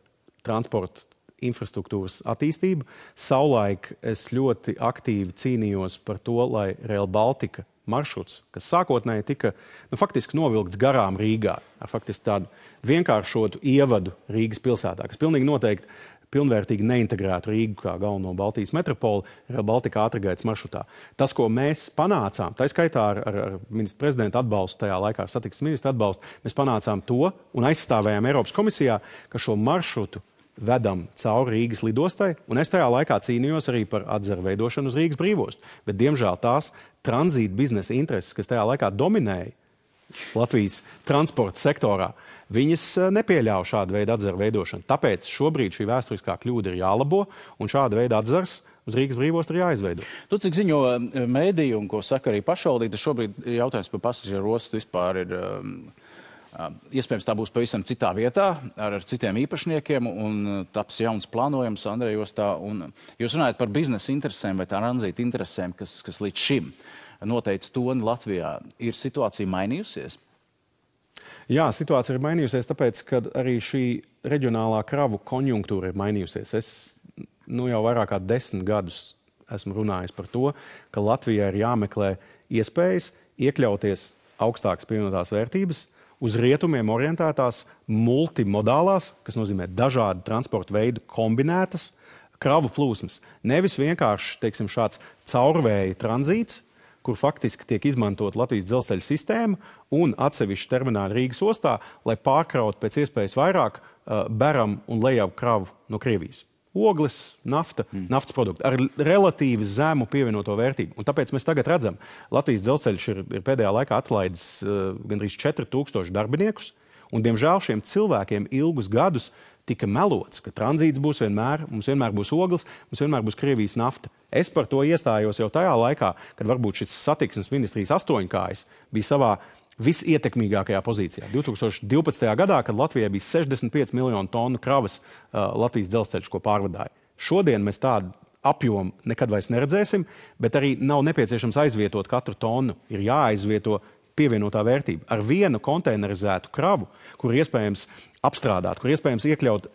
transportu infrastruktūras attīstību. Savulaik es ļoti aktīvi cīnījos par to, lai Rail Baltica maršruts, kas sākotnēji tika faktiski novilkts garām Rīgā, ar faktiski tādu vienkāršotu ievadu Rīgas pilsētā, kas pilnīgi noteikti pilnvērtīgi neintegrētu Rīgu kā galveno Baltijas metropoli Rail Baltica ātrgaitas maršrutā. Tas, ko mēs panācām, tā skaitā ar ministra prezidenta atbalstu, tajā laikā ar satiksmes ministra atbalstu, mēs panācām to un aizstāvējām Eiropas komisijā, ka šo maršrutu vedam cauri Rīgas lidostai, un es tajā laikā cīnījos arī par atzaru veidošanu uz Rīgas brīvostu. Bet, diemžēl, tās tranzīta biznesa intereses, kas tajā laikā dominēja Latvijas transporta sektorā, viņas nepieļauj šādu veidu atzaru veidošanu. Tāpēc šobrīd šī vēsturiskā kļūda ir jālabo, un šāda veida atzars uz Rīgas brīvostu ir jāizveido. Tu, cik ziņo mēdīju un ko saka arī pašvaldība, šobrīd jautājums par pasažieru ostu vispār ir... Iespējams, tā būs pavisam citā vietā, ar citiem īpašniekiem, un taps jauns plānojums Andrejostā. Jūs runājat par biznesa interesēm vai tranzīta interesēm, kas līdz šim noteica toni Latvijā. Ir situācija mainījusies? Jā, situācija ir mainījusies, tāpēc, ka arī šī reģionālā kravu konjunktūra ir mainījusies. Es jau vairāk kā 10 gadus esmu runājis par to, ka Latvijai ir jāmeklē iespējas iekļauties augstākas pievienotās vērtības, uz rietumiem orientētās multimodālās, kas nozīmē dažādu transporta veidu kombinētas kravu plūsmas. Nevis vienkārši, teiksim, šāds caurvēja tranzīts, kur faktiski tiek izmantot Latvijas dzelzceļa sistēma un atsevišķi termināli Rīgas ostā, lai pārkrautu pēc iespējas vairāk beram un lejavu kravu no Krievijas. Ogles, nafta, naftas produkti ar relatīvi zemu pievienoto vērtību. Un tāpēc mēs tagad redzam, Latvijas dzelzceļš ir pēdējā laikā atlaidis gandrīz 4000 darbiniekus, un diemžēl šiem cilvēkiem ilgus gadus tika melots, ka tranzīts būs mums vienmēr būs ogles, mums vienmēr būs Krievijas nafta. Es par to iestājos jau tajā laikā, kad varbūt šis satiksmes ministrijas astoņkājs bija savā visietekmīgākajā pozīcijā. 2012. gadā, kad Latvijai bija 65 miljonu tonu kravas Latvijas dzelzceļš, ko pārvadāja. Šodien mēs tādu apjomu nekad vairs neredzēsim, bet arī nav nepieciešams aizvietot katru tonu. Ir jāaizvieto pievienotā vērtība. Ar vienu konteinerizētu kravu, kur iespējams apstrādāt, kur iespējams iekļaut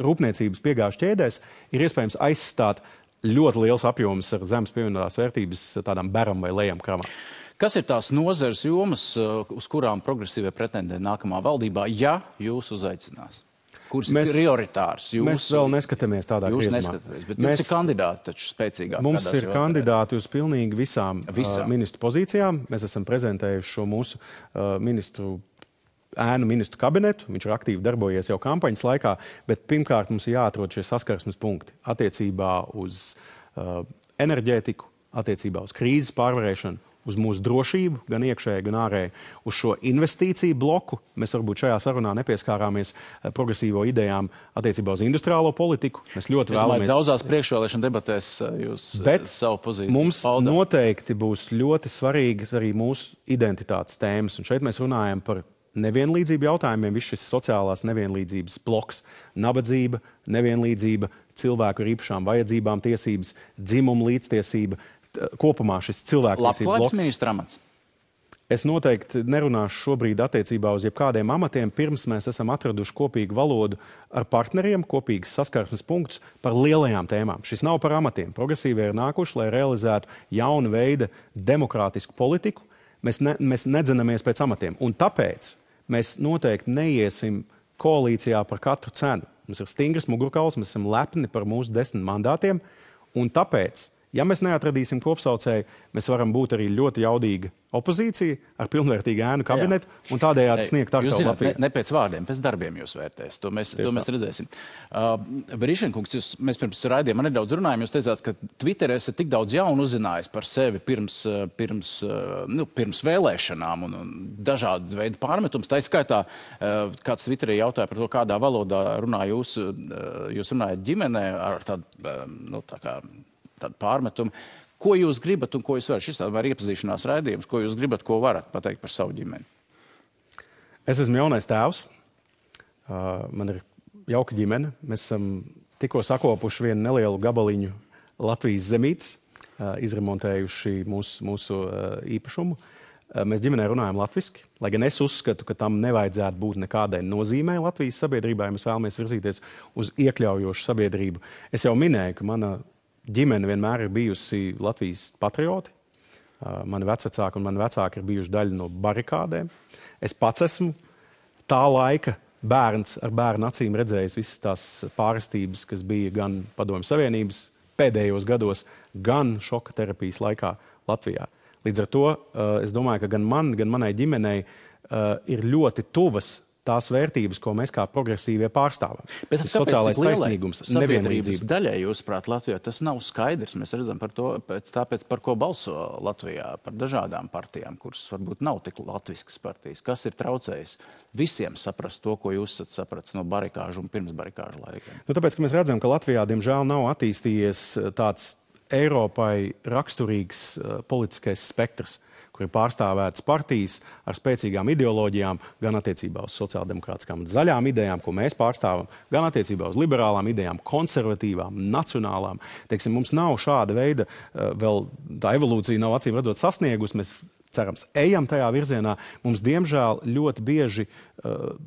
rūpniecības piegāžu ķēdēs, ir iespējams aizstāt ļoti liels apjoms ar zemes pievienotās vērtības tādām beram vai lejam kravām. Kas ir tās nozares jomas, uz kurām progresīvie pretendē nākamā valdībā, ja jūs uzaicinās? Kuras ir prioritārs? Mēs vēl neskatāmies tādā griezumā. Jūs neskatāties, bet jums ir kandidāti taču spēcīgāk. Mums ir kandidāti uz pilnīgi visām ministru pozīcijām. Mēs esam prezentējuši šo mūsu ministru kabinetu. Viņš ir aktīvi darbojies jau kampaņas laikā, bet pirmkārt mums ir jāatrod šie saskarsmes punkti attiecībā uz enerģētiku, attiecībā uz krīzes pārvarēšanu, uz mūsu drošību, gan iekšēji, gan ārēji, uz šo investīciju bloku. Mēs varbūt šajā sarunā nepieskārāmies progresīvo idejām attiecībā uz industriālo politiku. Mēs ļoti vēlamies... Daudzās priekšvēlēšana debatēs jūs savu pozīciju mums noteikti būs ļoti svarīgas arī mūsu identitātes tēmas. Un šeit mēs runājam par nevienlīdzību jautājumiem, viss šis sociālās nevienlīdzības bloks, nabadzība, nevienlīdzība, cilvēku ar īpašām vajadzībām tiesības, dzimuma līdztiesība, kopumā šis cilvēktiesību bloks. Labklājības ministra amats? Es noteikti nerunāšu šobrīd attiecībā uz jebkādiem amatiem, pirms mēs esam atraduši kopīgu valodu ar partneriem, kopīgas saskarsmes punktus par lielajām tēmām. Šis nav par amatiem. Progresīvie ir nākuši, lai realizētu jaunu veidu demokrātisku politiku. Mēs nedzenamies pēc amatiem. Un tāpēc mēs noteikti neiesim koalīcijā par katru cenu. Mums ir stingrs mugurkauls, mēs esam lepni par mūsu 10 mandātiem, un tāpēc, ja mēs neatradīsim kopsaucēju, mēs varam būt arī ļoti jaudīga opozīcija ar pilnvērtīgu ēnu kabinetu un tādējādi sniegt aktuālu Latviju. Ne pēc vārdiem, pēc darbiem jūs vērtēs. To mēs redzēsim. Brīšenkungs, mēs pirms raidījuma nedaudz runājām. Jūs teicāt, ka Twitterē esat tik daudz jaunu uzzinājis par sevi pirms vēlēšanām un dažādu veidu pārmetums. Tā izskaitā, kāds Twitterē jautāja par to, kādā valodā runā jūs runājat ģimenē ar tādu pārmetumu. Ko jūs gribat un ko jūs varat? Šis ir iepazīšanās raidījums. Ko jūs gribat, ko varat pateikt par savu ģimeni? Es esmu jaunais tēvs. Man ir jauka ģimene. Mēs esam tikko sakopuši vienu nelielu gabaliņu Latvijas zemītes, izremontējuši mūsu īpašumu. Mēs ģimenē runājam latviski, lai gan es uzskatu, ka tam nevajadzētu būt nekādai nozīmei Latvijas sabiedrībā, ja mēs vēlamies virzīties uz iekļaujošu sabiedrību. Es jau minēju, ka mana ģimene vienmēr ir bijusi Latvijas patrioti. Mani vecvecāki un mani vecāki ir bijuši daļa no barikādēm. Es pats esmu tā laika bērns ar bērnu acīm redzējis visas tās pārestības, kas bija gan Padomju Savienības pēdējos gados, gan šoka terapijas laikā Latvijā. Līdz ar to es domāju, ka gan man, gan manai ģimenei ir ļoti tuvas tās vērtības, ko mēs kā progresīvie pārstāvam. Bet tas sociālais taisnīgums, sabiedrības daļai, jūsuprāt, Latvijā tas nav skaidrs. Mēs redzam par to, tāpēc par ko balso Latvijā, par dažādām partijām, kuras varbūt nav tik latviskas partijas. Kas ir traucējis visiem saprast to, ko jūs esat sapratis no barikāžu un pirms barikāžu laikiem? Tāpēc, ka mēs redzam, ka Latvijā, diemžēl, nav attīstījies tāds Eiropai raksturīgs politiskais spektrs, kur ir pārstāvētas partijas ar spēcīgām ideoloģijām, gan attiecībā uz sociāldemokrātiskām un zaļām idejām, ko mēs pārstāvam, gan attiecībā uz liberālām idejām, konservatīvām, nacionālām. Teiksim, mums nav šāda veida, vēl tā evolūcija nav acīm redzot sasniegusi, mēs cerams, ejam tajā virzienā. Mums, diemžēl, ļoti bieži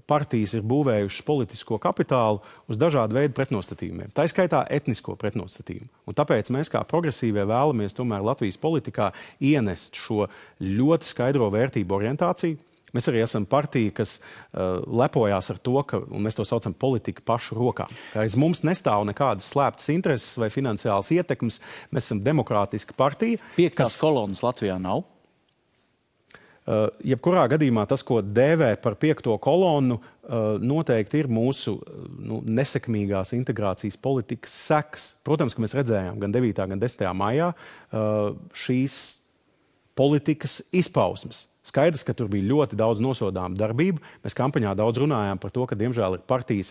partijas ir būvējušas politisko kapitālu uz dažādu veidu pretnostatījumiem. Tā skaitā etnisko pretnostatījumu. Un tāpēc mēs kā progresīvie vēlamies tomēr Latvijas politikā ienest šo ļoti skaidro vērtību orientāciju. Mēs arī esam partija, kas lepojās ar to, un mēs to saucam politika pašu rokām. Aiz mums nestāv nekādas slēptas intereses vai finansiālas ietekmes. Mēs esam demokrātiska partija. Piektās kolonas Latvijā nav? Jebkurā gadījumā tas, ko dēvē par piekto kolonu, noteikti ir mūsu nesekmīgās integrācijas politikas sekas. Protams, ka mēs redzējām gan 9. gan 10. maijā šīs politikas izpausmes. Skaidrs, ka tur bija ļoti daudz nosodāmu darbību. Mēs kampaņā daudz runājām par to, ka diemžēl ir partijas,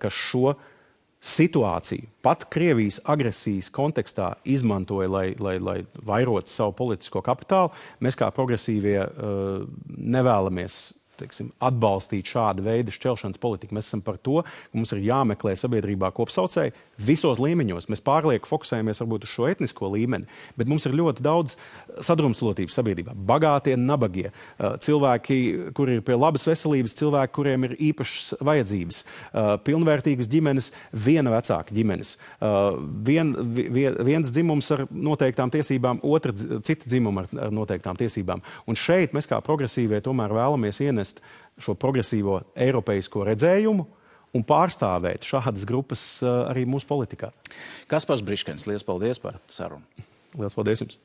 kas šo situāciju pat Krievijas agresijas kontekstā izmantoja, lai vairotu savu politisko kapitālu. Mēs kā progresīvie nevēlamies, teiksim, atbalstīt šādu veidu šķelšanas politiku. Mēs esam par to, ka mums ir jāmeklē sabiedrībā kopsaucēji visos līmeņos. Mēs pārlieku fokusējamies varbūt uz šo etnisko līmeni, bet mums ir ļoti daudz sadrumstalotības sabiedrībā. Bagātie, nabagie, cilvēki, kuri ir pie labas veselības, cilvēki, kuriem ir īpašas vajadzības, pilnvērtīgas ģimenes, viena vecāka ģimenes, viens dzimums ar noteiktām tiesībām, cita dzimuma ar noteiktām tiesībām. Un šeit mēs kā progresīvie tomēr vēlamies ienest šo progresīvo eiropeisko redzējumu un pārstāvēt šādas grupas arī mūsu politikā. Kaspars Briškens, liels paldies par sarunu. Liels paldies jums!